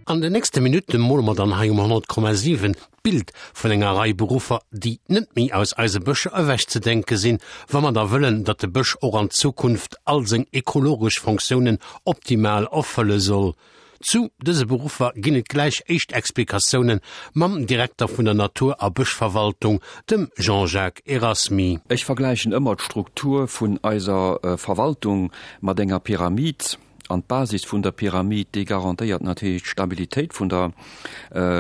An den nächste Minutte mole mer dann hei um 100,7 d'Bild vun enger Rei Beruffer, déi net méi aus eise Bëscher ewechzedenke sinn, wa mer da wëllen, datt de Bësch och an Zukunft all seng ekologesch Fonctiounen optimal erfëlle soll. Zu dëse Beruffer ginn et gläich éischt Explikatioune mam Direkter vun der Natur a Bëschverwaltung, dem Jean-Jacques Erasmy. Ech vergläichen ëmmer d'Struktur vun eiser Verwaltung mat enger Pyramid. An d'Basis vun der Pyramid, déi garantéiert natierlech d'Stabilitéit vun der,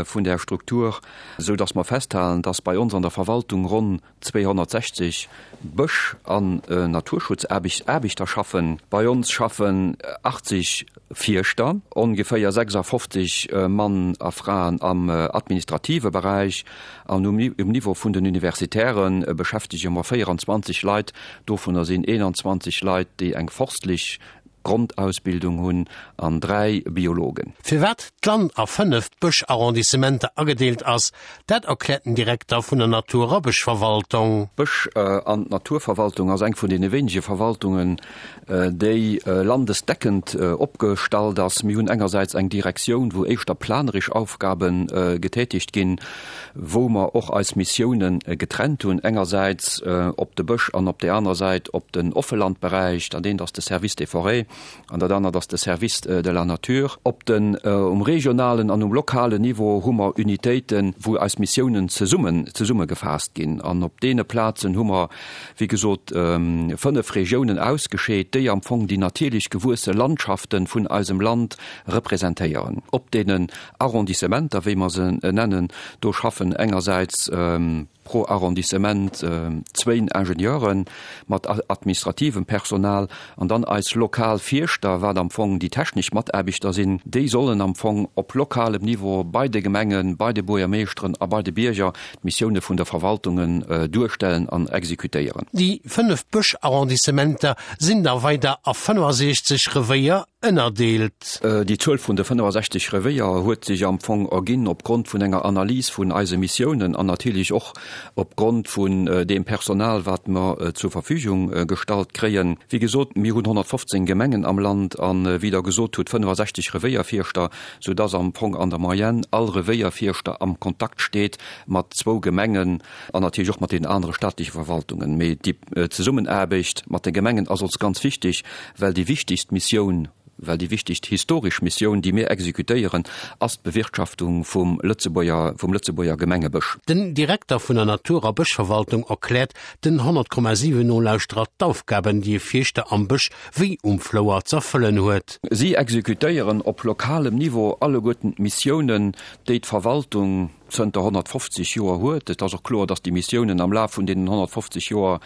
vun där Struktur, esou dass mer festhalen, dass bei ons an der Verwaltung ronn 260 Bësch an Naturschutzaarbechter schaffen. Bei ons schaffen 80 Fierschter, ongeféier 56 Mann a Fraen am administrative Beräich an um Niveau vun den Universitäre beschäftege mer 24 Leit. Dovunner sinn 21 Leit, déi eng forstlech Grondausbildung hunn an 3 Biologen. Firwat d'Land a 5 Bësch-Arrondissementer agedeelt ass, dat erkläert den Direkter vun der Natur a Bëschverwaltung. D'Bësch an d'Naturverwaltung ass eng vun deene wéinege Verwaltungen, déi landesdeckend opgestallt ass. Mir hunn engersäits eng Direktioun, wou éischter planeresch Aufgabe getätigt ginn, wou mer och eis Missiounen getrennt hunn, engersäits op de Bësch an op där anerer Säit op den Offelandberäich, dat eent ass de Service des forêts an dat anert ass de Service de la nature. Op den, um regionalen an um lokalen Niveau hu mer Unitéiten, wou eis Missiounen zesummen, zesummegefaasst ginn. An op deene Plazen hu mer, wéi gesot, 5 Regiounen ausgescheet, déi am Fong déi natierlech gewuesse Landschaften vun eisem Land representéieren. Op deenen Arrondissementer, wéi mer se nennen, do schaffen engersäits pro Arrondissement zwéin Ingenieure mat administrativem Personal an dann eis lokal Fierschter, wat am Fong déi technesch Mataarbechter sinn, déi sollen am Fong op lokalem Niveau bei de Gemengen, bei de Buergermeeschteren a bei de Bierger d'Missioune vun der Verwaltungen duerstellen an exekutéieren. Déi 5 Bësch-Arrondissementer sinn da weider a 65 Revéier ënnerdeelt. Déi Zuel vun de 65 Revéier huet sech am Fong erginn opgrond vun enger Analys vun eise Missiounen an natierlech och opgrond vun deem Personal, wat mer zur Verfügung gestallt kréien. Wéi gesot, mir hunn 115 Gemengen am Land an, wéi Der gesot hutt, 65 Revéierfierschter, soudass am Fong an der Moyenne all Revéierfierschter am Kontakt steet mat zwou Gemengen an natierlech och mat deenen anere staatleche Verwaltungen. Mee déi Zesummenaarbecht mat de Gemengen ass ons ganz wichteg, well déi wichtigst Missioun, well déi wichtigst historesch Missioun, déi mir exekutéieren, ass d'Bewirtschaftung vum Lëtzebuerger, vum Lëtzebuerger Gemengebësch. Den Direkter vun der Natur a Bëschverwaltung erkläert den 100,7 Nolauschterer d'Aufgaben, déi e Fierschter am Bësch wéi um Flouer z'erfëllen huet. Si exekutéieren op lokalem Niveau alleguerten d'Missiounen, déi d'Verwaltung zënter 150 Joer huet. Et ass och kloer, datt déi Missiounen am Laf vun deenen 150 Joer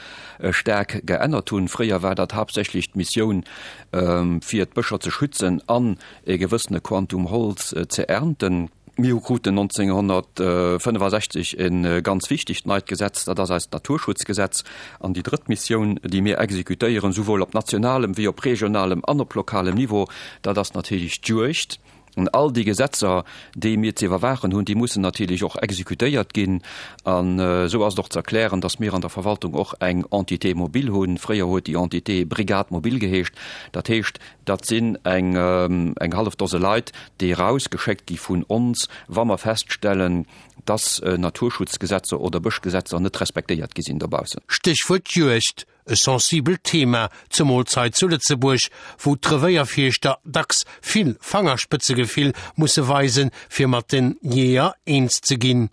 staark geännert hunn. Fréier war dat haaptsächlech d'Missioun, fir d'Bëscher ze schützen an e gewëssene Quantum Holz ze ernten. Mir kruten 1965 e ganz wichtegt neit Gesetz, dat ass eist Naturschutzgesetz. An déi drëtt Missioun, déi mir exekutéieren, souwuel op nationalem wéi op regionalem an op lokalem Niveau, dat ass natierlech d'Juegd. An all déi Gesetzer, déi mir ze iwwerwaachen hunn, déi mussen natierlech och exekutéiert ginn. An esou ass et och ze erklären, datt mir an der Verwaltung och eng Entité mobile hunn. Fréier huet déi Entité Brigade mobile geheescht. Dat heescht, dat sinn eng eng hallef Dose Leit, déi erausgeschéckt gi vun ons, wa mer feststellen, datt Naturschutzgesetzer oder Bëschgesetzer net respektéiert gi sinn dobaussen. Stéchwuert Juegd. E sensibelt Thema, zemools hei zu Lëtzebuerg, wou d'Revéierfierschter dacks vill Fangerspëtzegefill musse weisen, fir mat den Jeeër eens ze ginn.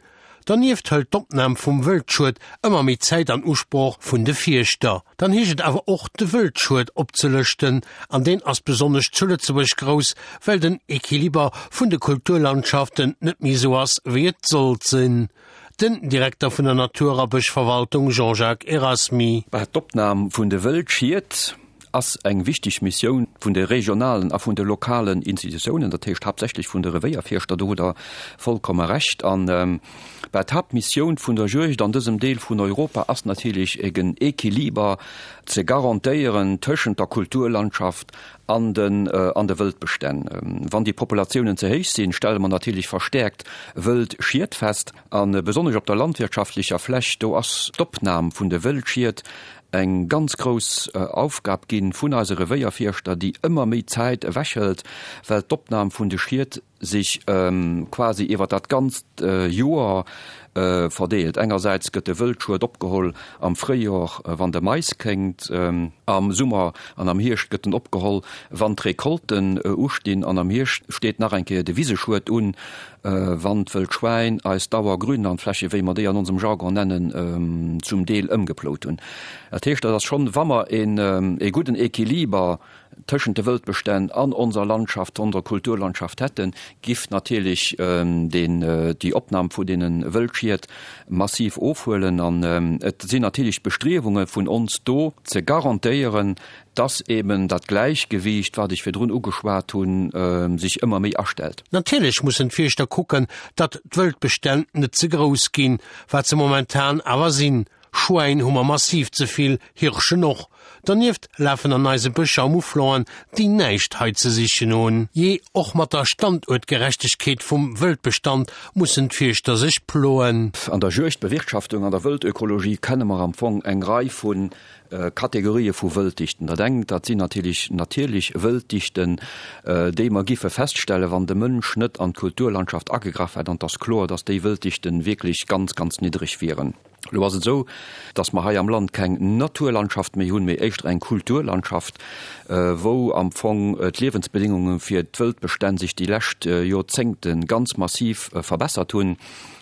Donieft hëlt d'Opnam vum Wëldschued ëmmer méi Zäit an Usproch vun de Fierschter. Dann heescht et awer och, de Wëldschued opzelëschten, an deen ass besonnesch zu Lëtzebuerg grouss, well den Equiliber vun de Kulturlandschaften net méi esou ass, wéi et sollt sinn. Den Direkter vun der Natur a Bëschverwaltung Jean-Jacques Erasmy. D'Opnam vun de Wëldschied ass eng wichteg Missioun vun de regionalen a vun de lokalen Institutiounen, dat heescht haaptsächlech vun de Revéierfierschter, do hutt Der vollkomme Recht. An bah, d'Haaptmissioun vun der Juegd an dësem Deel vun Europa ass natierlech en Equiliber ze garantéieren tëschent der Kulturlandschaft an den an de Wëldbestänn. Wann déi Populatiounen ze héich sinn, stelle mer natierlech verstäerkt Wëldschied fest. A besonnesch op der landwirtschaftlecher Fläch, do ass d'Opnam vun de Wëldschied eng ganz grouss Aufgab gi vun eise Revéierfierschter, déi ëmmer méi Zäit ewechhëlt, well d'Opnam vun de Schied. sech quasi iwwer dat ganzt Joer verdeelt. Engersäits gëtt de Wëldschued opgeholl am Fréijor, wann de Mais kéngt, am Summer an am Hierscht gëtt en opgeholl, wann d'Recolten ustinn, an am Hierscht steet nach eng Kéier de Wiseschued un, wann d'Wëldschwäin eis Dauergrünlandfläche, wéi mer déi an onsem Jargon nennen, zum Deel ëmgeplout hunn. Dat heescht, dat ass schonn, wa mer ee gudden Equiliber tëschent de Wëldbestänn an onser Landschaft, onser Kulturlandschaft hätten, giff natierlech deen, déi Opnam vu deene Wëldschied massiv ofhuelen. An et sinn natierlech d'Bestriewunge vun ons do, ze garantéieren, dass eben dat Gläichgewiicht, wat ech virdrun ugeschwat hunn, sech ëmmer méi astellt. Natierlech mussen d'Fierschter kucken, datt d'Wëldbestänn net ze grouss ginn, wat se momentan awer sinn. Schwäin hu mer massiv ze vill, Hirschen och. Donieft lafen an eise Bëscher Mouflonen, déi näischt hei ze sichen hunn. Jee, och mat der Standuertgerechtegkeet vum Wëldbestand mussen d'Fierschter sech ploen. An der Juegdbewirtschaftung, an der Wëldökologie kenne mer am Fong eng Rei vu Kategorië vu Wëlddichten. Dat engt, dat sinn natierlech natierlech Wëlddichten, déi mer giffe feststellen, wann de Mënsch net an d'Kulturlandschaft agegraff hätt. An et ass kloer, dass déi Wëlddichten wierklech ganz, ganz niddreg wieren. Elo ass et esou, dass mer hei am Land keng Naturlandschaft méi hunn, mee éischter eng Kulturlandschaft, wou am Fong d'Liewensbedéngunge fir d'Wëldbestänn sech déi lescht Joerzéngte ganz massiv verbessert hunn.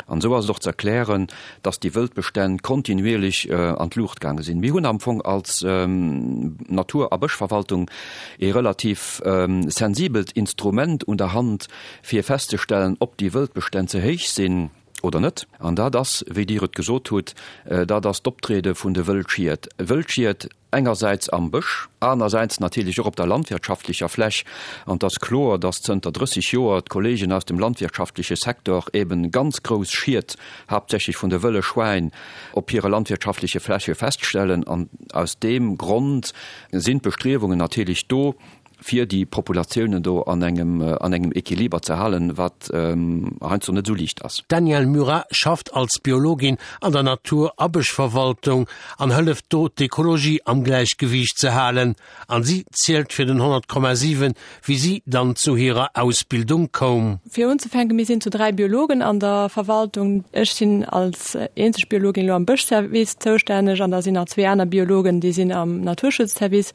An esou ass et och ze erklären, dass déi Wëldbestänn kontinuierlech an d'Luucht gaange sinn. Mir hunn am Fong als Natur a Bëschverwaltung ee relativ sensibelt Instrument un der Hand, fir festzestellen, ob déi Wëldbestänn ze héich sinn oder net. An dat ass, wéi Dir et gesot hutt, dat ass d'Optriede vun de Wëldschied. Wëldschied engersäits am Bësch, anersäits natierlech och op der landwirtschaftlecher Fläch. An et ass kloer, dass zënter 30 Joer d'Kollegen aus dem landwirtschaftleche Secteur eben ganz grouss Schied, haaptsächlech vun de wëlle Schwäin, op hire landwirtschaftleche Fläche feststellen. An aus deem Grond sinn d'Bestriewungen natierlech do, fir déi Populatiounen do an engem an engem Equiliber ze halen, wat heiansdo net esou liicht ass. D'Danièle Murat schafft als Biologin an der Natur a Bëschverwaltung an hëlleft do d'Ekologie am Gläichgewiicht ze halen. An si zielt fir den 100,7 wéi si dann zu hirer Ausbildung koum. Fir unzefänken, mir sinn zu 3 Biologen an der Verwaltung. Ech sinn als eenzeg Biologin elo am Bëschservice zoustänneg an da sinn nach zwee aner Biologen, déi sinn am Naturschutzservice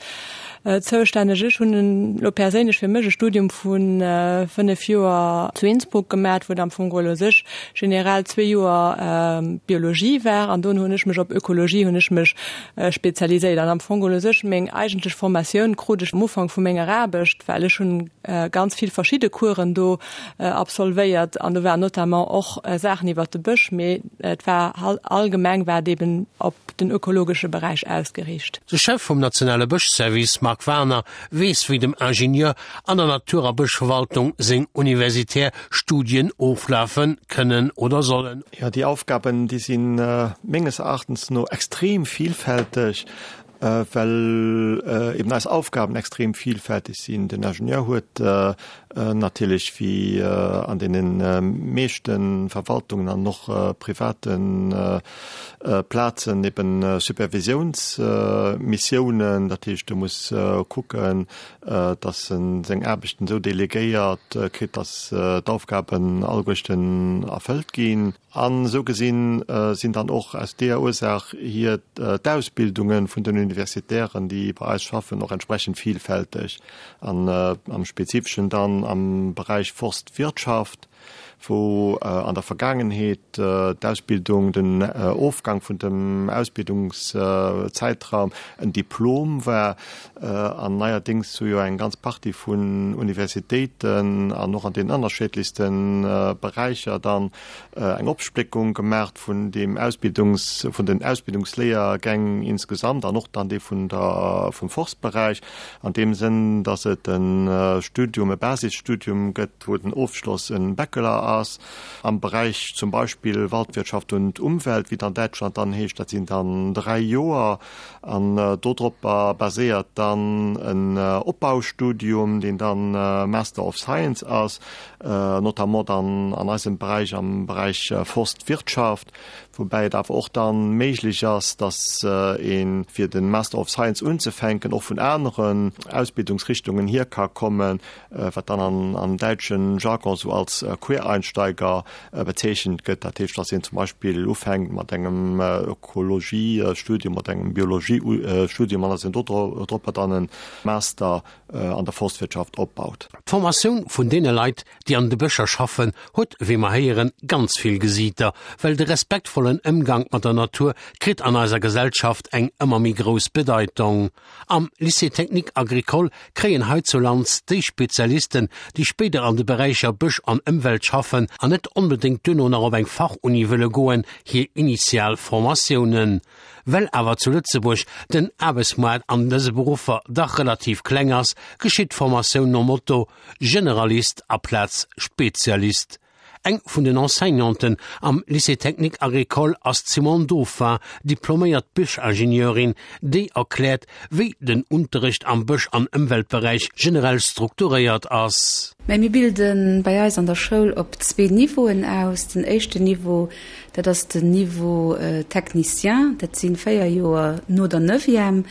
Zoustänneg. Ech hunn elo perséinlech fir mech e Studium vu 5 Joer zu Innsbruck gemat, wou et am Fong geholl u sech generell zwee Joer Biologie war an dunn hunn ech mech op Ökologie hunn ech mech spezialiséiert. An am Fong geholl u sech meng eigentlech Formatioun krut ech am Ufank vu menger Aarbecht, well ech hunn ganz vill verschidde Coursen do absolvéiert an do waren notamment och Saachen iwwert de Bësch, mee et war allgemeng war et eben op den ökologesche Beräich ausgeriicht. De Chef vum nationale Bëschservice Marc Werner weess wéi dem Ingenieur an der Natur a Bëschverwaltung seng universitär Studien oflafe kënnen oder sollen. Jo, déi Aufgaben, déi si menges Erachtens no extrem vielfälteg, well eben eis Aufgaben extrem vielfälteg sinn. Den Ingenieur huet natierlech wéi an deene meeschte Verwaltungen an och private Plazen eben Supervisiounsmissiounen, dat heescht e muss kucken, datt e seng Aarbechten esou delegéiert kritt, datt d'Aufgaben alleguerten erfëllt ginn. An esou gesinn sinn dann och aus deeër Ursaach hier d'Ausbildunge vun den Universitären, déi bei eis schaffen, och entsprechend vielfälteg an am Spezifeschen dann am Beräich Forstwirtschaft, wou an der Vergaangenheet d'Ausbildung, den Ofgang vun dem Ausbildungszäitraum en Diplom war an neierdéngs hu jo eng ganz Partie vun Universitéiten an och an den ënnerscheedlechste Beräicher dann eng Opspléckung gemaacht vun deem Ausbildungs-, vun den Ausbildungsléiergäng insgesamt an och dann dee vun der, vum Forstberäich, an deem Sënn, dass et e Studium, e Basisstudium gëtt, wou den Ofschloss e Bachelor ass. ass. Am Beräich zum Beispill Waldwirtschaft und Umwelt, wéi et an Däitschland dann heescht, dat sinn dann 3 Joer. An dodropper baséiert dann en Opbaustudium, deen dann Master of Science ass, notamment dann an eisem Beräich, am Beräich Forstwirtschaft, woubäi et awer och dann méiglech ass, dass ee fir de Master of Science unzefänken och vun aneren Ausbildungsrichtungen hier ka kommen, wat dann am däitschen Jargon sou als Quereinsteiger bezeechent gëtt. Dat heescht, dass een zum Beispill ufänkt mat engem Ökologiestudium, mat engem Biologiestudium an dass een dodropper dann e Master an der Forstwirtschaft opbaut. D'Formatioun vun deene Leit, déi an de Bëscher schaffen, huet, wéi mer héieren, ganz vill Gesiiter, well de respektvollen Ëmgank mat der Natur kritt an eiser Gesellschaft eng ëmmer méi grouss Bedeitong. Am Lycée technique agricole kréien heizulands déi Spezialisten, déi spéider an de Beräicher Bësch an Ëmwelt schaffen an net onbedéngt duerno nach op eng Fachuni wëlle goen, hir initial Formatiounen. Well awer zu Lëtzebuerg den Aarbechtsmoart an dëse Beruffer dach relativ kleng ass, geschitt d'Formatioun nom Motto Generalist aplaz Spezialist. Eng vun den Enseignanten am Lycée technique agricole ass d'Simone Dauphin, diploméiert Bëschingenieurin, déi erkläert, wéi den Unterrecht am Bësch an Ëmweltberäich generell strukturéiert ass. Mä mir bilde bei eis an der Schoul op zwee Niveauen aus. Den éischten Niveau, dat ass den Niveau technicien, dat si véier Joer no der Neuvième.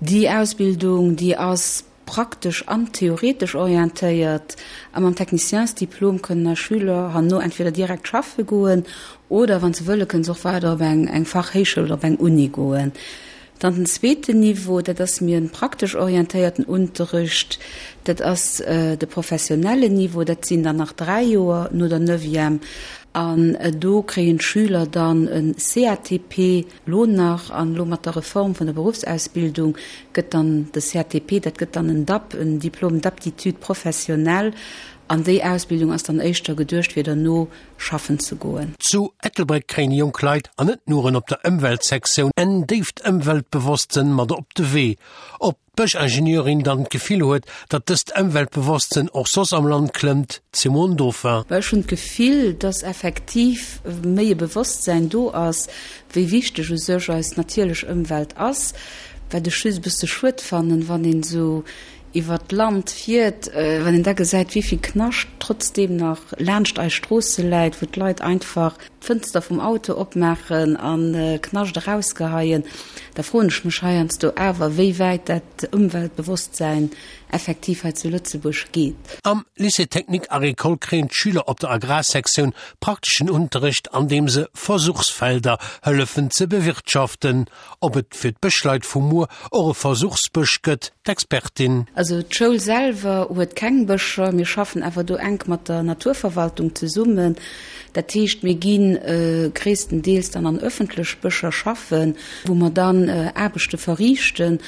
Déi Ausbildung, déi ass praktesch an theoretesch orientéiert a mam Techniciensdiplom kënnen eis Schüler herno entweder direkt schaffe goen oder, wann se wëlle, kënnen se och weider op eng eng Fachhéichschoul oder op eng Uni goen. Dann den zweeten Niveau, dat ass méi e praktesch orientéierten Unterricht, dat ass de professionellen Niveau, dat sinn dann nach 3 Joer no der Neuvième an do kréien d'Schüler dann e CATP, Lo nach, an elo mat der Reform vun der Beruffsausbildung, gëtt dann de CATP, dat gëtt dann en DAP, en Diplôme d'aptitude professionnelle, an déi Ausbildung ass dann éischter geduecht, fir derno schaffen ze goen. Zu Ettelbréck kréien jonk Leit, an net nuren op der Ëmweltsektioun, en déift Ëmweltbewosstsënn mat op de Wee. Op d'Bëschingenieurin dann d'Gefill huet, datt dëst Ëmweltbewosstsënn och soss am Land klëmmt, d'Simone Dauphin. Ech hunn d'Gefill, datt effektiv méi e Bewosstsäin do ass, wéi wichteg u sech eis natierlech Ëmwelt ass. Wat ech just e bësse schued fannen, wann een esou iwwer d'Land fiert, wann een da gesäit, wéi vill Knascht trotzdeem nach laanscht eis Stroosse läit, wou d'Leit einfach d'Fënster vum Auto opmaachen a Knascht erausgeheien, da froen ech mech heiansdo awer, wéi wäit dat Ëmweltbewosstsäin effektiv hei zu Lëtzebuerg geet. Am Lycée technique agricole kréien d'Schüler op der Agrarsektioun prakteschen Unterrecht, an deem se Versuchsfelder hëllefen ze bewirtschaften. Ob et fir d'Bëschleit vu muer och e Versuchsbësch gëtt, d'Expertin. Also d'Schoul selwer huet keng Bëscher. Mir schaffen awer do enk mat der Naturverwaltung zesummen. Dat heescht, mir gi gréisstendeels dann an ëffentlech Bëscher schaffen, wou mer dann Aarbechte verriichten.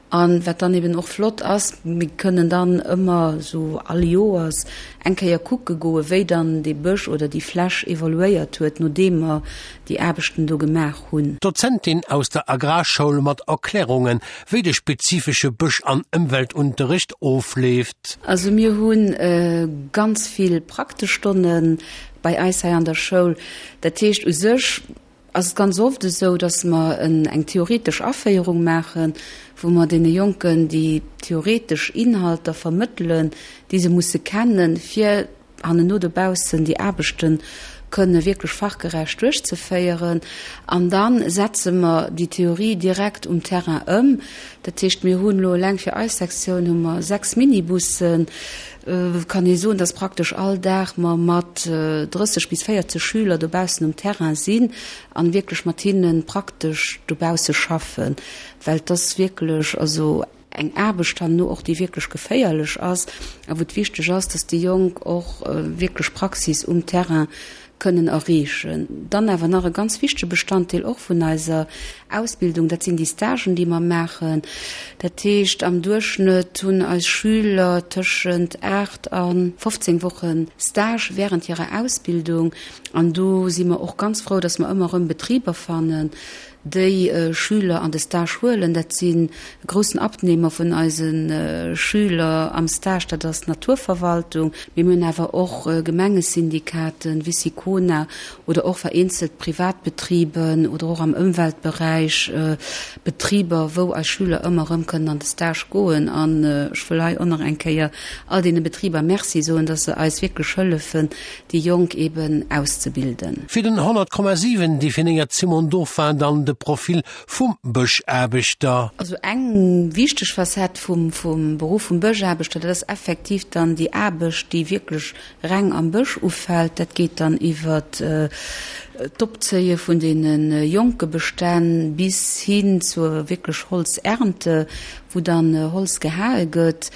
A wat dann eben och flott ass, mir kënnen dann ëmmer esou all Joers eng Kéier kucke goen, wéi dann dee Bësch oder déi Fläch evoluéiert huet, nodeem mer déi Aarbechten do gemaach hunn. D'Dozentin aus der Agrarschoul mat Erklärungen, wéi de spezifesche Bësch an Ëmweltunterricht ofleeft. Also mir hu ganz vill praktesch Stonne bei eis hei an der Schoul. Dat heescht u sech ass et ganz oft esou, datt mer eng theoretesch Aféierung maachen, wou mer deene Jonken déi theoretesch Inhalter vermëttelen, déi se musse kennen, fir hannenno dobaussen déi Aarbechte kënne wierklech fachgerecht duerchzeféieren. An da setze mer déi Theorie direkt um Terrain ëm. Dat heescht, mir hunn elo eleng fir eis Sektioun hu mer 6 Minibussen. Et kann ee soen, dass praktesch all Dag mer mat 30 bis 40 Schüler dobaussen um Terrain sinn an wierklech mat hinne praktesch dobausse schaffen, well et ass wierklech also eng Aarbecht herno och, déi wierklech geféierlech ass a wou et wichteg ass, dass déi Jonk och wierklech Praxis um Terrain kënnen erreechen. Dann awer nach e ganz wichtege Bestanddeel och vun eiser Ausbildung, dat sinn déi Stagen, déi mer maachen. Dat heescht, am Duerchschnëtt hunn eis Schüler tëschent 8 a 15 Woche Stage während hirer Ausbildung. An do si mer och ganz frou, dass mer ëmmer erëm Betriber fannen. Déi Schüler an de Stage huelen. Dat sinn e groussen Abnehmer vun eise Schüler am Stage, dat ass d'Naturverwaltung. Mee mir hunn awer och Gemengesyndikaten, Wicicona oder och vereenzelt Privatbetriben oder och am Ëmweltberäich Betriber, wou eis Schüler ëmmer erëm kënnen an de Stage goen. An ech wëll hei och nach eng Kéier all deene Betriber Merci soen, dass se eis wierklech hëllefen, déi Jonk eben auszebilden. Fir den 100,7 definéiert d'Simone Dauphin dann de Profil vum Bëschaarbechter. Also eng wichteg Facette vum Beruff vum Bëschaarbechter, dat ass effektiv dann déi Aarbecht, déi wierklech reng am Bësch ufält. Dat geet dann iwwer d'Opzéie vun deene jonke Bestänn bis hin zur wierklech Holzernte, wou dann Holz gehae gëtt.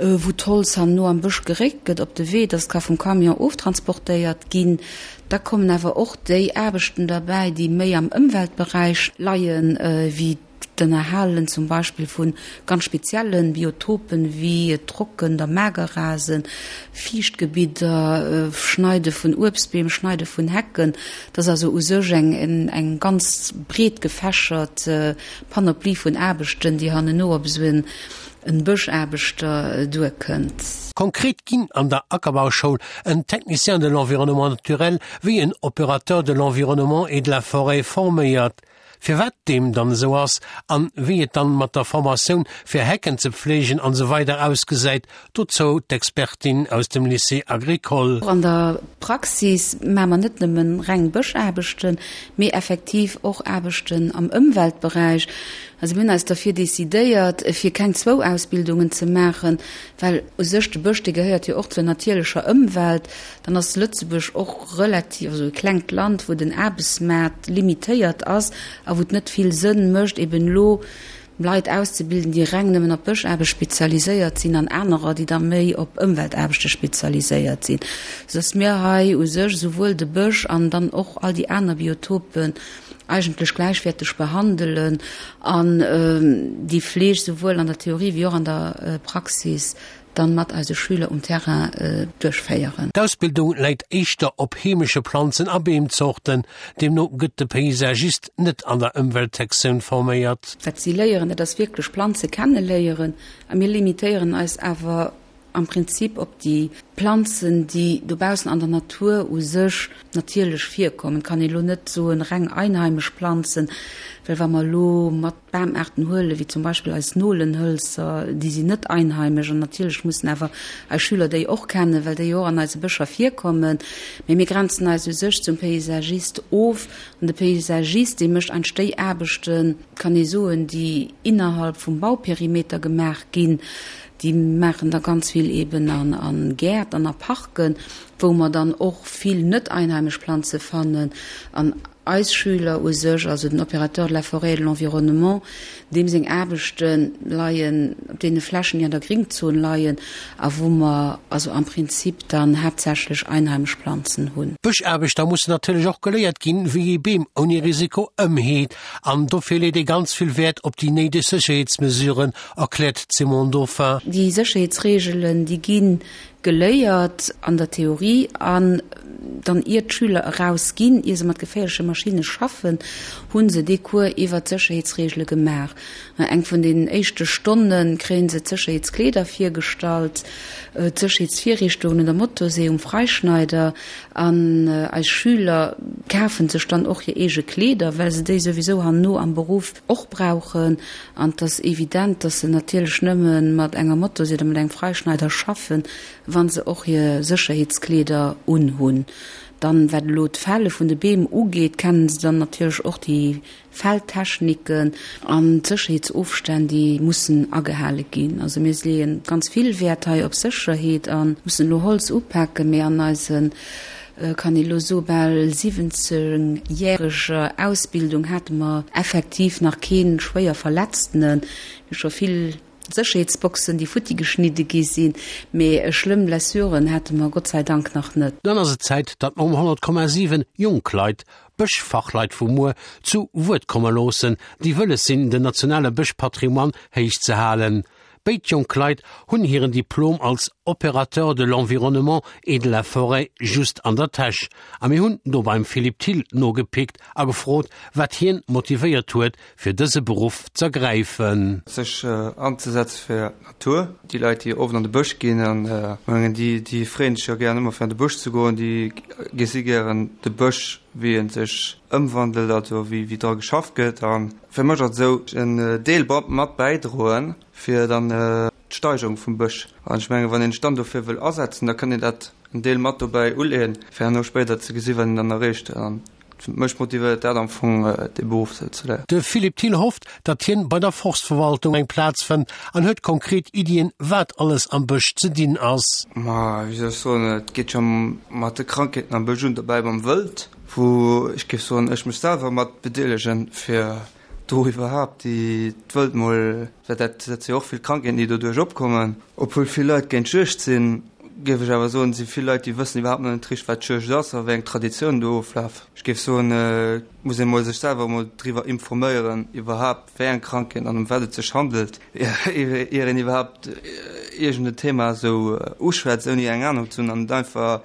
wou d'Holz herno am Bësch geréckt gëtt op de Wee, dass et ka vum Camion oftransportéiert ginn. Da kommen awer och déi Aarbechten derbäi, déi méi am Ëmweltberäich leien, wéi d'Ënnerhalen zum Beispill vu ganz spezielle Biotopen, wéi Trocken der Magerrasen, Fiichtgebidder, Schneide vun Uebstbeem, Schneide vun Hecken. Dat ass also u sech eng ganz breet gefächert Panoplie vun Aarbechten, déi hanneno op esou en en Bëschaarbechter duerkënnt. Konkret ginn an der Ackerbauschoul en Technicien de l'environnement naturel wéi en Opérateur de l'environnement et de la forêt forméiert. Firwat deem dann esou ass an wéi et dann mat der Formatioun fir Hecken ze pflegen an esou weider ausgesäit, dozou d'Expertin aus dem Lycée Agricole. Och an der Praxis maache mer net nëmmen reng Bëschaarbechten, mee effektiv och Aarbechten am Ëmweltberäich. Also mir hunn eis derfir decidéiert, fir keng zwou Ausbildungen ze maachen, well u sech de Bësch, dee gehéiert jo och zur natierlecher Ëmwelt. Dann ass Lëtzebuerg och relativ, also e klengt Land, wou den Aarbechtsmaart limitéiert ass a wou et net vill Sënn mécht, eben elo Leit auszebilden, déi reng nëmmen op Bëschaarbecht spezialiséiert sinn an anerer, déi da méi op Ëmweltaarbechte spezialiséiert sinn, soudass mir hei u sech esouwuel de Bësch an dann och all déi aner Biotopen eigentlech gläichwäerteg behandelen an déi Fleeg souwuel an der Theorie wéi och an der Praxis dann mat eise Schüler um Terrain duerchféieren. D'Ausbildung läit éischter op heemesche Planzen a Beemzorten, deemno gëtt de Paysagist net an der Ëmweltsektioun forméiert. Wat si léieren, dat ass wierklech Planze kenneléieren a mir limitéieren eis awer am Prinzip op déi Planzen, déi dobaussen an der Natur u sech natierlech virkommen. Et kann een elo net soen, reng einheimesch Planzen, well wa mer elo mat Bamaarten huelen, wéi zum Beispill eis Nolenhölzer, déi sinn net einheimesch an natierlech mussen awer eis Schüler déi och kennen, well déi jo och an eise Bëscher virkommen. Mee mir grenzen eis u sech zum Paysagist of an de Paysagist, dee mécht eigentlech déi Aarbechten, kann ee soen, déi innerhalb vum Bauperimeter gemaach ginn. Déi maachen da ganz vill eben a Gäert an a Parken, wou mer dann och vill net einheimesch Planze fannen. An eis Schüler u sech, also den Opérateur de la forêt et de l'environnement, deem seng Aarbechte leien op deene Flächen, déi an der Gringzon leien a wou mer also am Prinzip dann haaptsächlech einheimesch Planzen hunn. D'Bëschaarbechter mussen natierlech och geléiert ginn, wéi ee Beem ouni Risiko ëmheet. An dofir leet ee ganz vill Wäert op déi néideg Sécherheetsmesuren, erkläert d'Simone Dauphin. Déi Sécherheetsreegelen, déi gi geléiert an der Theorie an dann ier d'Schüler eraus ginn, ier se mat geféierleche Maschinne schaffen, hu se dee Cours iwwert d'Sécherheetsreegele gemaach. Eng vun den éischte Stonne kréie se d'Sécherheetskleeder virgestallt, d'Sécherheetsvirrichtungen un der Motorsee, um Freischneider an eis Schüler kafe sech dann och hir eege Kleeder, well se déi souwisou herno am Beruff och brauchen. An et ass evident, dass se natierlech nëmme mat enger Motorsee oder mat engem Freischneider schaffen, wa se och hir Sécherheetskleeder unhunn. Dann, wat elo d'Fälle vun de Beem ugeet, kennen se dann natierlech och déi Fälltechniken an d'Sécherheetsofstänn, déi mussen agehale ginn. Also mir leeë ganz vill Wäert hei op Sécherheet a mussen elo Holz upaken, mee an eise kann ee lo soe bal 17 järeger Ausbildung hate mer effektiv nach kee schwéier Verletztene. Mir hu scho vill Sécherheetsboxen, déi futti geschnidde gi sinn, mee schlëmm Blessuren hate mer Gott sei Dank nach net. Dann ass et Zäit, datt mer um 100,7 jonk Leit, Bëschfachleit vu muer, zu Wuert komme loossen, déi wëlles sinn, den nationale Bëschpatrimoine héich ze halen. Béid jonk Leit hunn hiren Diplom als. Opérateur de l'environnement et de la forêt just an der Täsch. A mir hunn do beim Philippe Thill nogepickt a gefrot, wat hien motivéiert huet, fir dëse Beruff z'ergräifen. Sech anzesetze fir d'Natur. Déi Leit, déi oft an de Bësch ginn, an mengen, déi, déi freeën sech jo gären ëmmer fir an de Bësch ze goen, déi gesi gären de Bësch, wéi e sech ëmwandelt, also wéi, wéi dra geschafft gëtt. A fir mech ass et esou, en Deel mat bäidroen, fir dann d'Steigerung vum Bësch. An ech mengen, wann een sech dann dofir wëll asetzen, da kann een dat en Deel mat dobäi uleeën, fir herno spéider ze gesi wat een dann erreecht. An mech motivéiert dat am Fong, dee Beruff sou ze léieren. De Philippe Thill hofft, datt hien bei der Forstverwaltung eng Plaz fënnt an huet konkret Iddien, wat alles am Bësch ze dinn ass. Ma wéi soll ech soen, et geet scho mat de Krankheeten am Bësch un, dobäi mam Wëld, wou ech géif soen, ech mech selwer mat bedeelegen, fir do iwwerhaapt déi d'Wëld mol, well dat dat si jo och vill Krankheeten, déi doduerch opkommen. Obwuel vill Leit géint d'Juegd sinn, géif ech awer soen, si vill Leit, déi wëssen iwwerhaapt nach net richteg, wat d'Juegd ass a wéi eng Traditiounen do oflafen. Ech géif soen, et muss ee mol sech selwer emol driwwer informéieren, iwwerhaapt wéi eng Krankheeten an ëm wat et sech handelt, ier een iwwerhaapt iergend en Thema esou uschwätzt, ouni eng Anung ze hunn an et einfach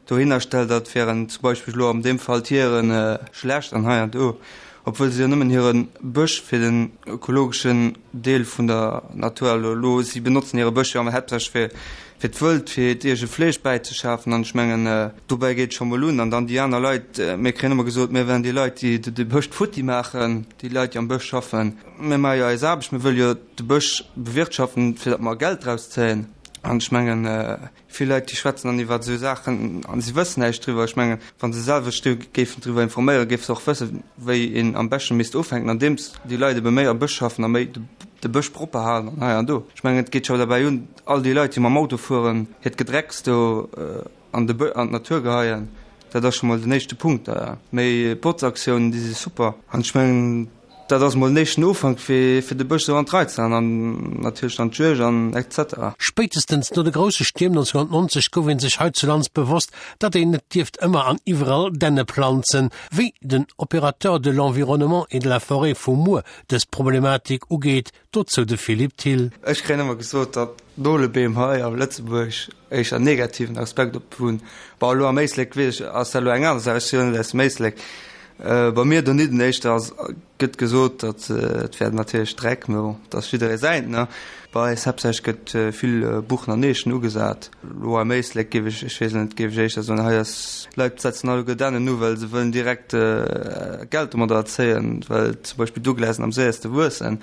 dohinner stellt, dat wären zum Beispill elo an deem Fall d'Hiere schlecht an hei an do, obwuel se jo nëmmen hire Bësch fir den ökologeschen Deel vun der Natur elo, elo si benotzen hire Bësch jo haaptsächlech fir fir d'Wëld, fir hiert eege Fleesch bäizeschafen an ech mengen dobäi geet et scho mol un. An dann déi aner Leit, mir kréien ëmmer gesot, mir wären déi Leit, déi de Bësch futti maachen, déi Leit, déi am Bësch schaffen. Mir maache jo eis Aarbecht, mir wëlle jo de Bësch bewirtschaften, fir datt mer Geld draus zéien an ech mengen, Vill Leit, déi schwätzen dann iwwer esou Saachen a si wëssen näischt driwwer. Ech mengen, wa se selwer sech do géifen driwwer informéieren, géife se och wëssen, wéi een am beschte misst ufänken, andeems déi Leit ebe méi am Bësch schaffen a méi de Bësch propper halen an hei an do. Ech mengen, et geet scho derbäi un, all déi Leit, déi mam Auto fueren, hiert Gedrecks do an de Bë an d'Natur geheien. Dat ass scho mol den éischte Punkt. Méi Botzaktiounen, déi si super. An ech mengen, Dat ass mol den éischten Ufank fir fir de Bësch esou an d'Rei ze han an natierlech dann d'Juegd an etc. Spéitestens no de grousse Stierm 1990 gouf een sech heizulands bewosst, datt een net dierft ëmmer an iwwerall Dänne planzen. Wéi den Opérateur de l'environnement et de la forêt vu muer dës Problematik ugeet, dozou de Philippe Thill. Ech kréien ëmmer gesot, datt Nolebeem hei a Lëtzebuerg éischter en negativen Aspekt op hunn. Bon, elo am Éislek weess ech, ass dat elo eng aner Saach, ech si jo net aus dem Éislek. Bei mir donidden éischter ass, gëtt gesot, datt et wär natierlech Dreck, mä bon, dat ass jidderee säint, ne. Bei eis haaptsächlech gëtt vill Buchen an Eechen ugesat. Elo am Éislek géif ech, ech weess net, géif ech éischter soen, hei ass, d'Leit setzen alleguer Dännen u, well se wëllen direkt Geld domadder erzéien, well zum Beispill Douglasen am séierste wuessen.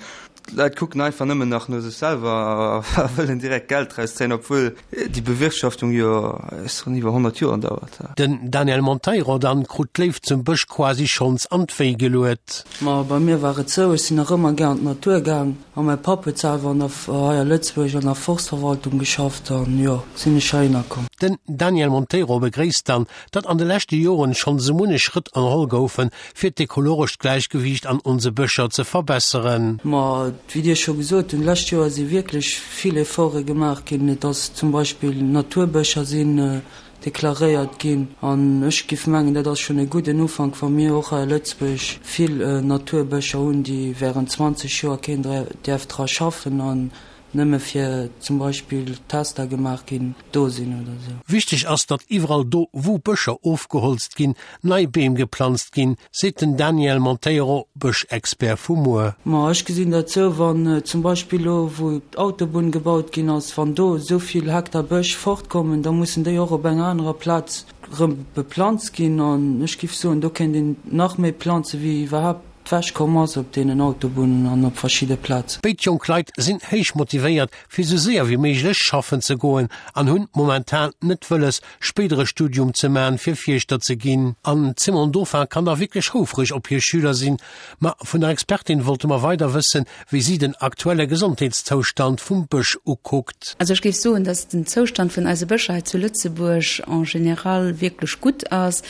D'Leit kucken einfach nëmmen nach no sech selwer a wëllen direkt Geld draus zéien, obwuel déi Bewirtschaftung jo schonn iwwer 100 Joer dauert. Den Daniel Monteiro dann krut d'Léift zum Bësch quasi schonns an d'Wéi geluet. Ma bei mir war et sou, ech sinn nach ëmmer gär an d'Natur gaang a mäi Papp huet selwer an der, hei a Lëtzebuerg an der Forstverwaltung geschafft an jo, sinn ech heihinner komm. Den Daniel Monteiro begréisst dann, datt an de leschte Joren schonn sou munnech Schrëtt ënnerholl goufen, fir d'ekologescht Gläichgewiicht an onse Bëscher ze verbesseren. Ma wéi Dir scho gesot hunn, d'lescht Joer si wierklech vill Efforte gemaach ginn. Et ass zum Beispill Naturbëscher sinn deklaréiert ginn. An ech géif mengen, dat ass schonn e gudden Ufank, wa mir och hei a Lëtzebuerg vill Naturbëscher hunn, déi während 20 Joer keen däerf dra schaffen an nëmme fir zum Beispill Tester gemaach ginn, do sinn oder sou. Wichteg ass, datt iwwerall do, wou Bëscher ofgeholzt ginn, nei Beem geplanzt ginn, seet den Daniel Monteiro, Bëschexpert vu muer. Ma ech gesinn dat sou, wann zum Beispill elo, wou d'Autobunn gebaut ginn ass, wann do esou vill Hektar Bësch fortkommen, da mussen déi och op enger anerer Plaz rëm beplanzt ginn. An ech giff soen, do kéint een nach méi planze wéi iwwerhaapt d'wech komm ass op deenen Autobunnen an op verschidde Plazen. Béid jonk Leit sinn héich motivéiert fir sou séier wéi méiglech schaffen ze goen an hunn momentan net wëlles spéider e Studium ze man fir Fierschter ze ginn. An d'Simone Dauphin kann da wierklech houfreg op hir Schüler sinn. Ma vun der Expertin wollte mer weider wëssen, wéi si den aktuelle Gesondheetszoustand vum Bësch ukuckt. Also ech géif soen, dass den Zoustand vun eise Bëscher hei zu Lëtzebuerg en général wierklech gutt ass.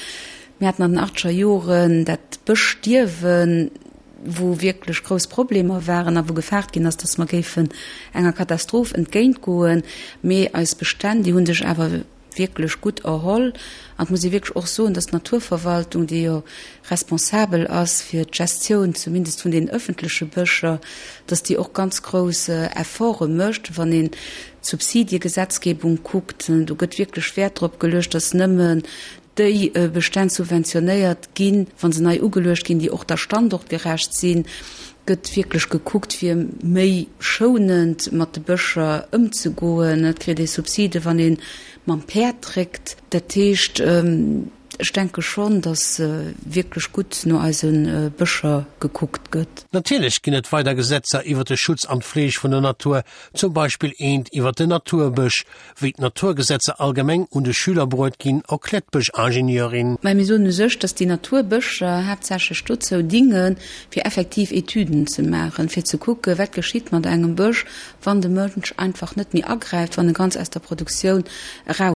Mir haten an den achtzeger Joren dat Bëschstierwen, wou wierklech grouss Problemer waren a wou gefaart ginn ass, dass mer géifen enger Katastroph entgéintgoen. Mee eis Bestänn, déi hu sech awer. wierklech gutt erholl. An et muss ee wierklech och soen, dass d'Naturverwaltung, déi jo responsabel ass fir d'Gestioun zumindest vun den öffentleche Bëscher, dass déi och ganz grouss Efforte mécht, wann een d'Subsidiegesetzgebung kuckt. Do gëtt wierklech Wäert drop geluecht, dass nëmmen déi Bestänn subventionéiert ginn, wa se nei ugeluecht ginn, déi och da standortgerecht sinn. Gëtt wierklech gekuckt, fir méi schounend mat de Bëscher ëmzegoen. Et kritt ee Subside, wann ee mam Päerd dréckt. Dat heescht, ech denke schonn, datt wierklech gutt no eise Bëscher gekuckt gëtt. Natierlech ginn et weider Gesetzer iwwer de Schutz an d'Fleeg vun der Natur, zum Beispill eent iwwer den Naturbësch. Wéi d'Naturgesetzer allgemeng un de Schüler bruet ginn, erkläert d'Bëschingenieurin. Mä mir soen u sech, dass déi Naturbëscher haaptsächlech dozou dingen, fir effektiv Etüden ze maachen, fir ze kucken, wat geschitt mat engem Bësch, wann de Mënsch einfach net méi agräift, wann e ganz aus der Produktioun eraus.